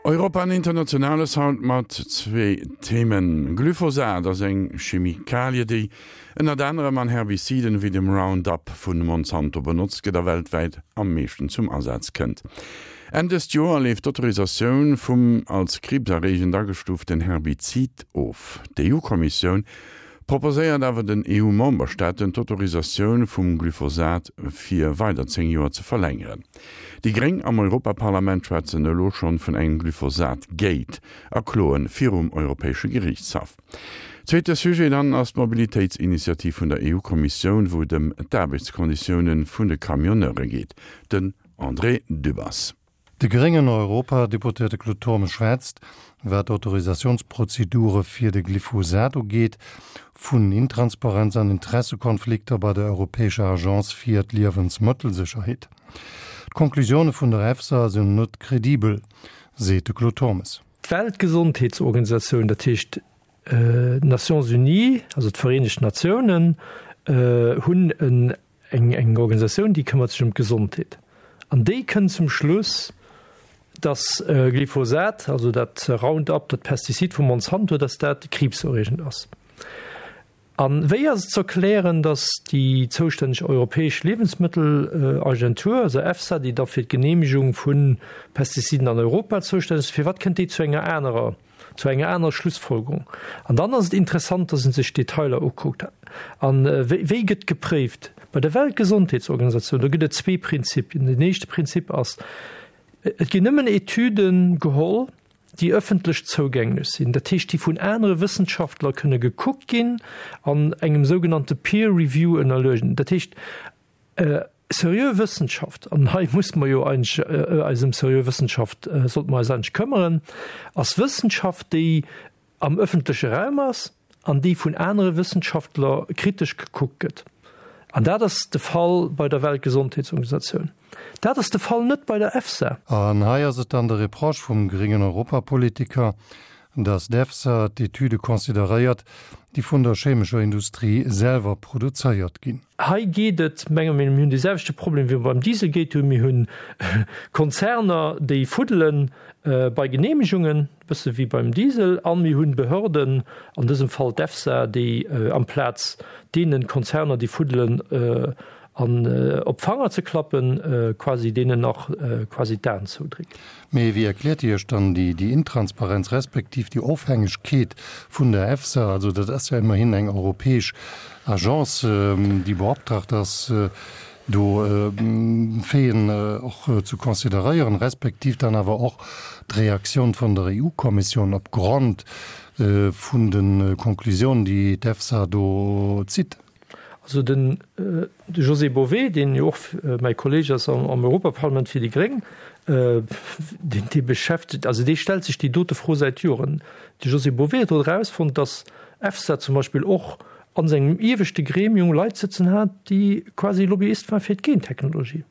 Europa an Internationales haut mat zwee Themen. Glyphosat ass eng Chemikalie, déi ënnert anerem an Herbiziden wéi dem Roundup vu Monsanto benotzt gëtt a weltwäit am meeschten zum Asaz kënnt. Enn dëst Joer leeft d'Autorisatioun vum als kriibserreegend agestuuften Herbizid of. D'EU-Kommissioun proposéiert awer den EU-Memberstaaten d'Autorisatioun vum Glyphosat fir weider 10 Joer ze verlängeren. Déi Gréng am Europaparlament schwätzen elo schonn vun engem Glyphosat-Gate a kloen virum Europäesche Geriichtshaff. Zweete Sujet dann ass d'Mobilitéitsinitiativ vun der EU-Kommissioun, wou et ëm d'Aarbechtskonditioune vun de Camionneure geet. Den André Dübbers. De gréngen Europadeputéierte Claude Turmes schwätzt, wat d'Autorisatiounsprozedure fir de Glyphosat ugeet, vun Intransparenz an Interessekonflikter bei der Europäescher Agence fir d'Liewensmëttelsécherheet. D'Conclusioune vun der EFSA sinn net kredibel, seet de Claude Turmes. D'Weltgesondheetsorganisatioun, dat heescht d'Nations Unies, also d'Vereenegt Natiounen, hunn eng Organisatioun, déi këmmert sech ëm d'Gesondheet. An déi kënnt zum Schluss, datt Glyphosat, also dat Roundup, dat Pestizid vu Monsanto, datt dat kriibserreegend ass. A wéi ass et ze erklären, datt déi zoustänneg europäesch Liewensmëttelagentur, also EFSA, déi da fir d'Geneemegung vu Pestiziden an Europa zoustänneg ass, firwat kënnt déi zu enger anerer, zu enger anerer Schlussfolgerung? An dann ass et interessant, datt ee sech d'Detailer ukuckt. A wéi gëtt gepréift? Bei der Weltgesondheetsorganisatioun, do gëtt et zwee Prinzipien. Den éischte Prinzip ass, Et ginn nëmmen Etüde geholl, déi ëffentlech zougänglech sinn, dat heescht déi vun anere Wëssenschaftler kënne gekuckt ginn an engem sougenannte Peer Review ënnerluegen. Dat heescht seriö Wëssenschaft, an hei muss mer jo eigentlech eis ëm seriö Wëssenschaft, sollte mer eis eigentlech këmmeren, ass Wëssenschaft, déi am ëffentleche Raum ass an déi vun anere Wëssenschaftler kritesch gekuckt gëtt. An dat ass de Fall bei der Weltgesondheetsorganisatioun. Dat ass de Fall net bei der EFSA. An hei ass et dann de Reproche vum gréngen Europapolitiker, datt d'EFSA d'Etüde consideréiert, déi vun der chemescher Industrie selwer produzéiert ginn. Hei geet et, menge mir, mir hunn dee selwechte Problem wéi mer beim Dieselgate hunn, Mir hunn Konzerner, déi fuddele bei Genehmegungen, e bësse wéi beim Diesel, a mir hunn Behörden, an dësem Fall d'EFSA, déi amplaz deene Konzerner, déi fuddelen, an op d'Fanger ze klappen, quasi deenen nach quasi d'Aen zoudrécken. Mee wéi erkläert Dir Iech dann déi Intransparenz respektiv déi Ofhängegkeet vun der EFSA? Also dat ass jo immerhin eng europäesch Agence, déi beoptragt ass, do Faiten och ze consideréieren, respektiv dann awer och d'Reaktioun vun der EU-Kommissioun opgrond vun de Konklusiounen, déi d'EFSA do zitt. Also den de José Bové, deen jo och mäi Kolleeg ass am Europaparlament fir déi Gréng, deen dee beschäftegt, also dee stellt sech déi dote Fro säit Joren. De José Bové huet och erausfonnt, datt EFSA zum Beispill och a sengem ieweschte Gremium Leit sëtzen hat, déi quasi Lobbyist waren fir d'Gentechnologie.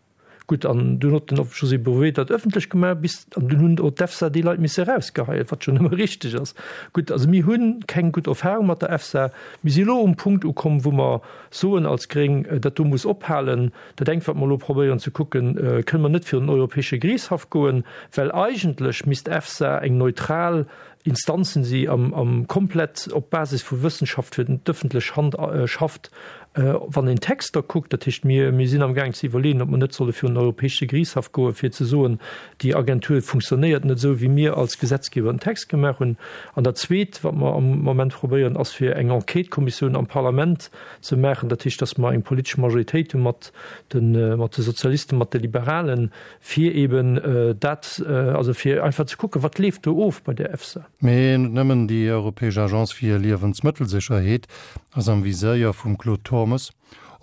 Gutt, an dunn huet den José Bové dat ëffentlech gemaach, bis, an dunn hunn och d'EFSA déi Leit misse erausgeheien, wat schonn ëmmer richteg ass. Gutt, also mir hu keng gutt Erfahrung mat der EFSA. Mir si elo um Punkt ukomm, wou mer soen als Gréng, dat do muss ophalen. Dat engt, wat mer elo probéieren ze kucken, Kënne mer net virun den Europäesche Geriichtshaff goen, well eigentlech misst d'EFSA eng neutral Instanzen si am komplett op Basis vu Wëssenschaft fir d'ëffentlech Hand schafft, wann een d'Texter kuckt. Dat heescht, mir mir sinn amgaang ze iwwerleeën, ob mer net solle virun den Europäesche Geriichtshaff goen, fir ze soen, déi Agentur funktionéiert net esou, wéi mir als Gesetzgeber den Text gemaach hunn. An dat Zweet, wat mer am Moment probéieren, ass fir eng Enquêtekommissioun am Parlament ze maachen. Dat heescht, datt mer eng politesch Majoritéit hu mat de mat de Sozialisten, mat de Liberalen, Fir eben dat, also fir einfach ze kucken, wat leeft do of bei der EFSA. Mee net nëmmen déi europäesch Agence fir Liewensmëttelsécherheet ass am Viséier vum Claude Turmes.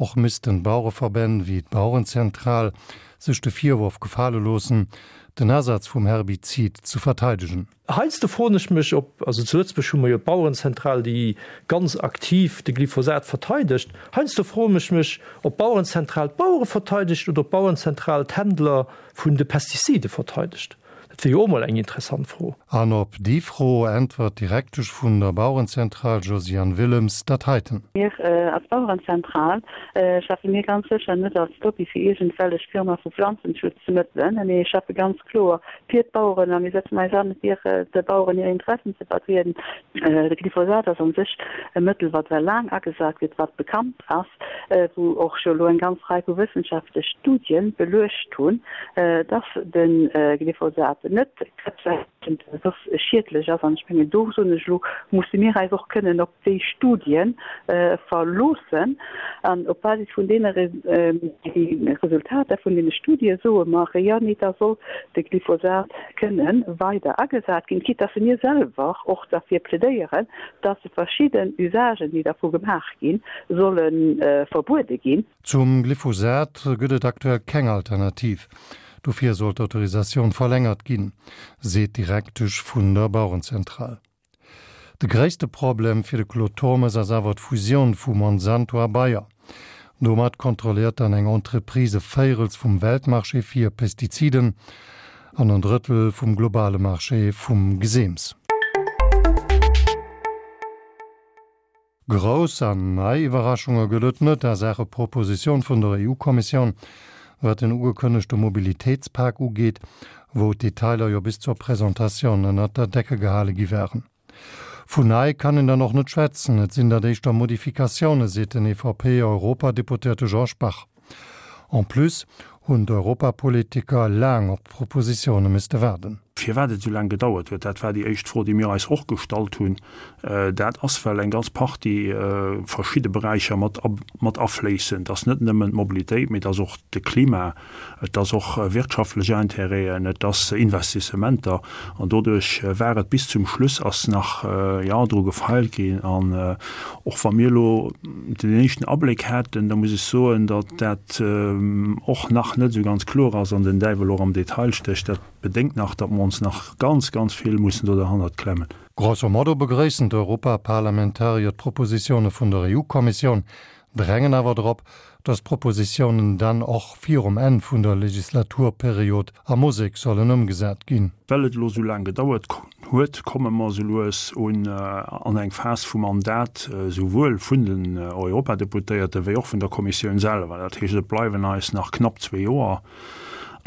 Och missten d'Bauereverbänn wéi d'Bauerenzentral sech de Virworf gefale loossen, den Asaz vum Herbizid ze verteidegen. Heiansdo froen ech mech, ob, also zu Lëtzebuerg hu mer jo d'Bauerenzentral, déi ganz aktiv de Glyphosat verteidegt, heiansdo froen ech mech, ob d'Bauerenzentral d'Bauere verteidegt oder ob d'Bauerenzentral d'Händler vun de Pestizide verteidegt. Dat wier jo och mol eng interessant Fro. An op déi Fro äntwert d'Direktesch vun der Bauerenzentral Josiane Willems dat heiten. Mir als Bauerenzentral schaffe mir ganz sécher net als Lobby fir iergendwellech Firma vu Pflanzenschutzmëttelen. Mir schaffe ganz kloer fir d'Baueren a mir setzen eis an, fir de Baueren hir Interessen ze vertrieden. De Glyphosat ass an sech e Mëttel, wat well laang agesat gëtt, wat bekannt ass, wou och scho elo eng ganz Rei vu wëssenschaftlech Studie beluecht hunn, dass de Glyphosat net krebserreegend, soss schiedlech ass. An ech mengen, do soen ech elo, musse mir eis och kënnen op déi Studie verloossen. An op Basis vun deene Resultater vun deene Studie soe mer, jo, nee, da soll de Glyphosat kënne weider agesat ginn, quitte dass mir selwer och derfir plädéieren, dass verschidden Usagen, déi dervu gemaach ginn, solle verbuede ginn. Zum Glyphosat gëtt et aktuell keng Alternativ. Dofir soll d'Autorisatioun verlängert ginn, seet d'Direktesch vun der Bauerenzentral. De gréisste Problem fir de Claude Turmes ass awer d'Fusioun vu Monsanto a Bayer. Domat kontrolléiert dann eng Entreprise e Véirels vum Weltmarché fir Pestiziden an en Drëttel vum globale Marché vum Geseems. Grouss an nei Iwwerraschunge gëtt et net a Saache Propositioun vun der EU-Kommissioun, wat den ugekënnegte Mobilitéitspak ugeet, wou d'Detailer jo bis zur Presentatioun ënnert der Decke gehale gi waren. Vun nei kann een dann och net schwätzen, et sinn dat éischter Modifikatioune, seet den EVP-Europadeputéierte Georges Bach. En plus hunn d'Europapolitiker laang op d'Propositioune misste waarden. Firwat et esou laang gedauert huet, dat war déi éischt Fro, déi mir eis och gestallt hunn. Dat ass, well eng ganz Partie verschidde Beräicher mat mat afléissen. Et ass net nëmmen d'Mobilitéit, mee et ass och de Klima, et ass och wirtschaftlech Intérêten, et ass Investissementer. An doduerch war et bis zum Schluss ass nach, jo, dru gefeilt ginn. An och wa mir elo den éischten Abléck haten, da muss ech soen, datt dat och nach net esou ganz kloer ass an den Däiwel och am Detail stécht. Dat bedéngt nach, datt mer ons nach ganz, ganz vill mussen do derhannert klemmen. Grosso modo begrëissen d'Europaparlamentarier d'Propositioune vun der EU-Kommissioun, drängen awer drop, datt d'Propositiounen dann och virum Enn vun der Legislaturperiod a Musek sollen ëmgesat ginn. Well et elo esou laang gedauert huet, komme mer esou lues un an eng Phas vum Mandat, esouwuel vun den Europadeputéierte wéi och vun der Kommissioun selwer. Dat heescht, et bleiwen eis nach knapp zwee Joer.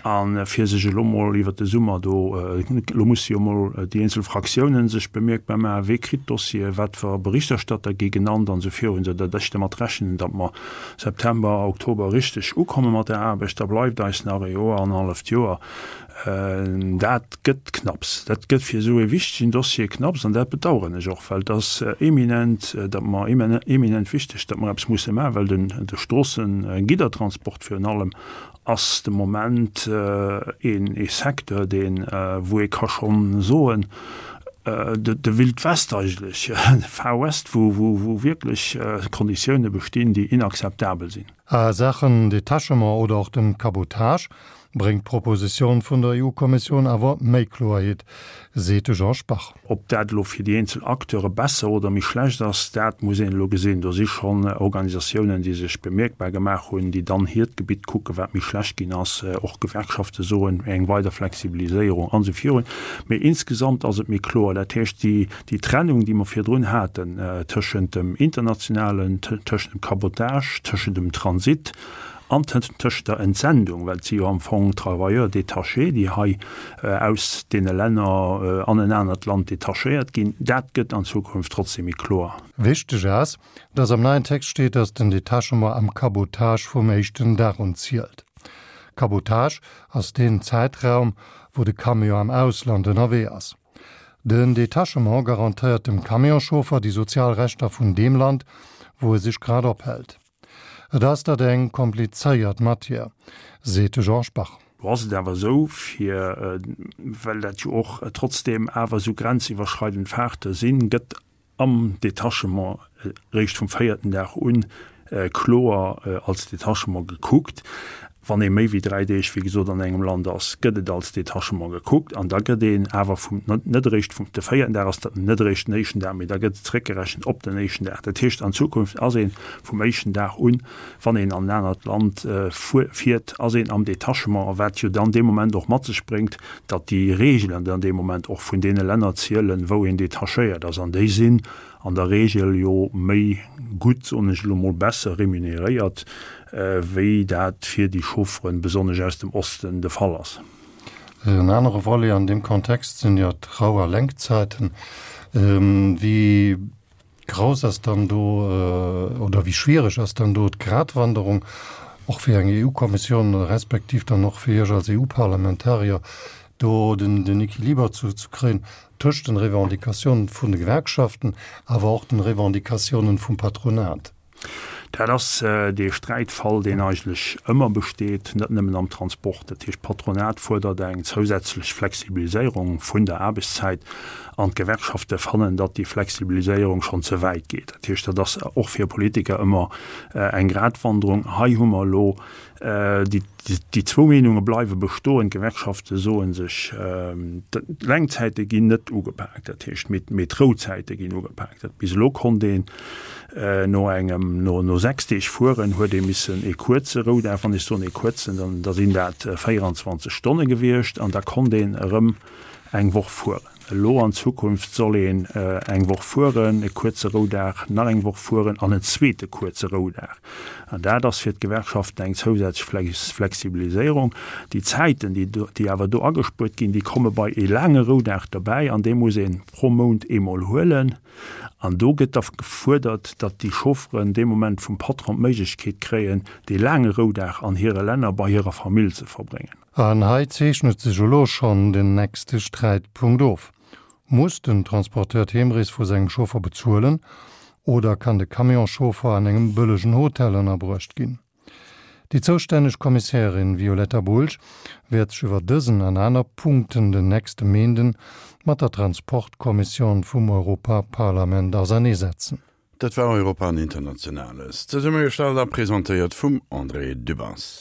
A fir sech elo mol iwwert de Summer do, elo musse jo mol déi eenzel Fraktiounen sech bemierkbar maachen, wee kritt d'Dossiere, wat fir Berichterstatter gi genannt an esou virun, esou datt ech dermat rechnen, datt mer September, Oktober richteg ukomme mat der Aarbecht. Da bleift eis nach e Joer, annerhalleft Joer. Dat gëtt knapps. Dat gëtt fir esou e wichtegen Dossier knapps an dat bedauern ech och, well et ass eminent, datt mer, eminent wichteg, datt mer eppes musse maachen, well den, de Stroossengiddertransport virun allem ass de Moment een ee Secteur, deen, wou ee ka schonn soen, de de Wild West eigentlech, de Far West, wou wou wou wierklech Konditioune bestinn, déi inakzeptabel sinn. A Saachen Detachement oder och dem Cabotage bréngt d'Propositioun vun der EU-Kommissioun awer méi Kloerheet, seet de Georges Bach. Ob dat elo fir déi eenzel Acteure besser oder méi schlecht ass, dat muss een elo gesinn. Do si schonn Organisatiounen, déi sech bemierkbar gemaach hunn, déi dann hiert Gebitt kucken, wat méi schlecht ginn ass. Och Gewerkschafte soen, eng weider Flexibiliséierung an esou virun. Mee insgesamt ass et méi kloer. Dat heescht, déi Trennung, déi mer virdrun haten tëschent dem internationalen, tëschent dem Cabotage, tëschent dem Transit, An tëscht der Entsendung, well et si jo am Fong Travailleurs détachés, déi hei aus deene Länner an en anert Land detachéiert ginn, dat gëtt an Zukunft trotzdem méi kloer. Wichteg ass, dass am neien Text steet, dass den Detachement am Cabotage vum éischten Dag un zielt. Cabotage ass deen Zäitraum, wou de Camion am Ausland ënnerwee ass. Den Detachement garantéiert dem Camionschauffer déi sozial Rechter vun deem Land, wou e sech grad ophält. Et ass dat eng komplizéiert Matière, seet de Georges Bach. Lo ass et awer esou, fir, well dat jo och trotzdeem awer esou grenziwwerschreidend Fahrte sinn, gëtt am Detachement eréischt vum véierten Dag un kloer als Detachement gekuckt. Wann ee méi wéi 3 Deeg, wéi gesot, an engem Land ass, gëtt et als Detachement gekuckt an da gëtt een awer vum, net eréischt vum, de véierten Dag ass dat net eréischt den éischten Dag, mee da gëtt et zeréckgerechent op den éischten Dag. Dat heescht, an Zukunft ass ee vum éischten Dag un, wann een an en anert Land fiert, ass een am Detachement, wat jo dann dee Moment och mat sech bréngt, datt déi Reegelen dann dee Moment och vun deene Länner zielen, wou een detachéiert ass. An déi sinn an der Regel jo méi gutt, soen ech elo mol, besser remuneréiert, wéi dat fir déi Chaufferen, besonnesch aus dem Osten, de Fall ass. En anere Volet an deem Kontext sinn jo d'Rou a Lenkzäiten. Wéi grouss ass dann do oder wéi schwiereg ass dann do d'Gratwanderung, och fir eng EU-Kommissioun respektiv dann och fir Iech als EU-Parlamentarier, do den Equiliber ze kréien tëscht den Revendicatiounen vun de Gewerkschaften, awer och den Revendicatiounen vum Patronat? Dat ass dee Sträitfall, deen eigentlech ëmmer besteet, net nëmmen am Transport. Dat heescht, d'Patronat fuerdert eng zousätzlech Flexibiliséierung vun der Aarbechtszäit an d'Gewerkschafte fannen, datt déi Flexibiliséierung schonn ze wäit geet. Dat heescht, dat ass och fir Politiker ëmmer eng Gratwanderung. Hei hu mer elo Déi zwou Meenunge bleiwe bestoen. D'Gewerkschafte soe sech, d'Lenkzäite ginn net ugepaakt, dat heescht, mee d'Rouzäite ginn ugepaakt. Dat bis elo konnt een no engem, no 6 Deeg fueren, huet ee missen ee kuerze Roudag, wann ech soen ee kuerzen, dann da sinn dat 24 Stonne gewiescht an da konnt een erëm eng Woch fueren. Elo an Zukunft soll een eng Woch fueren, e kuerze Roudag, nach eng Woch fueren an en zweete kuerze Roudag. An dat ass fir d'Gewerkschaften eng zousätzlech Flexibiliséierung. Déi Zäiten, déi awer do agespuert ginn, déi komme bei e laange Roudag dobäi an dee muss ee pro Mount eemol huelen. An do gëtt da gefuerdert, datt déi Chaufferen dee Moment vum Patron d'Méiglechkeet kréien, dee laange Roudag an hire Länner bei hirer Famill ze verbréngen. An hei zeechnet sech elo schonn den nächste Sträitpunkt of, Muss den Transporteur d'Heemrees vu sengem Chauffer bezuelen oder kann de Camionschauffer an engem bëllegen Hotel ënnerbruecht ginn? Déi zoustänneg Kommissärin Violetta Bulc wäert sech iwwer dësen an aner Punkten den nächste Méinden mat der Transportkommission vum Europaparlament auserneesetzen. Dat war Europa an Internationales, zesummegestallt a presentéiert vum André Dübbers.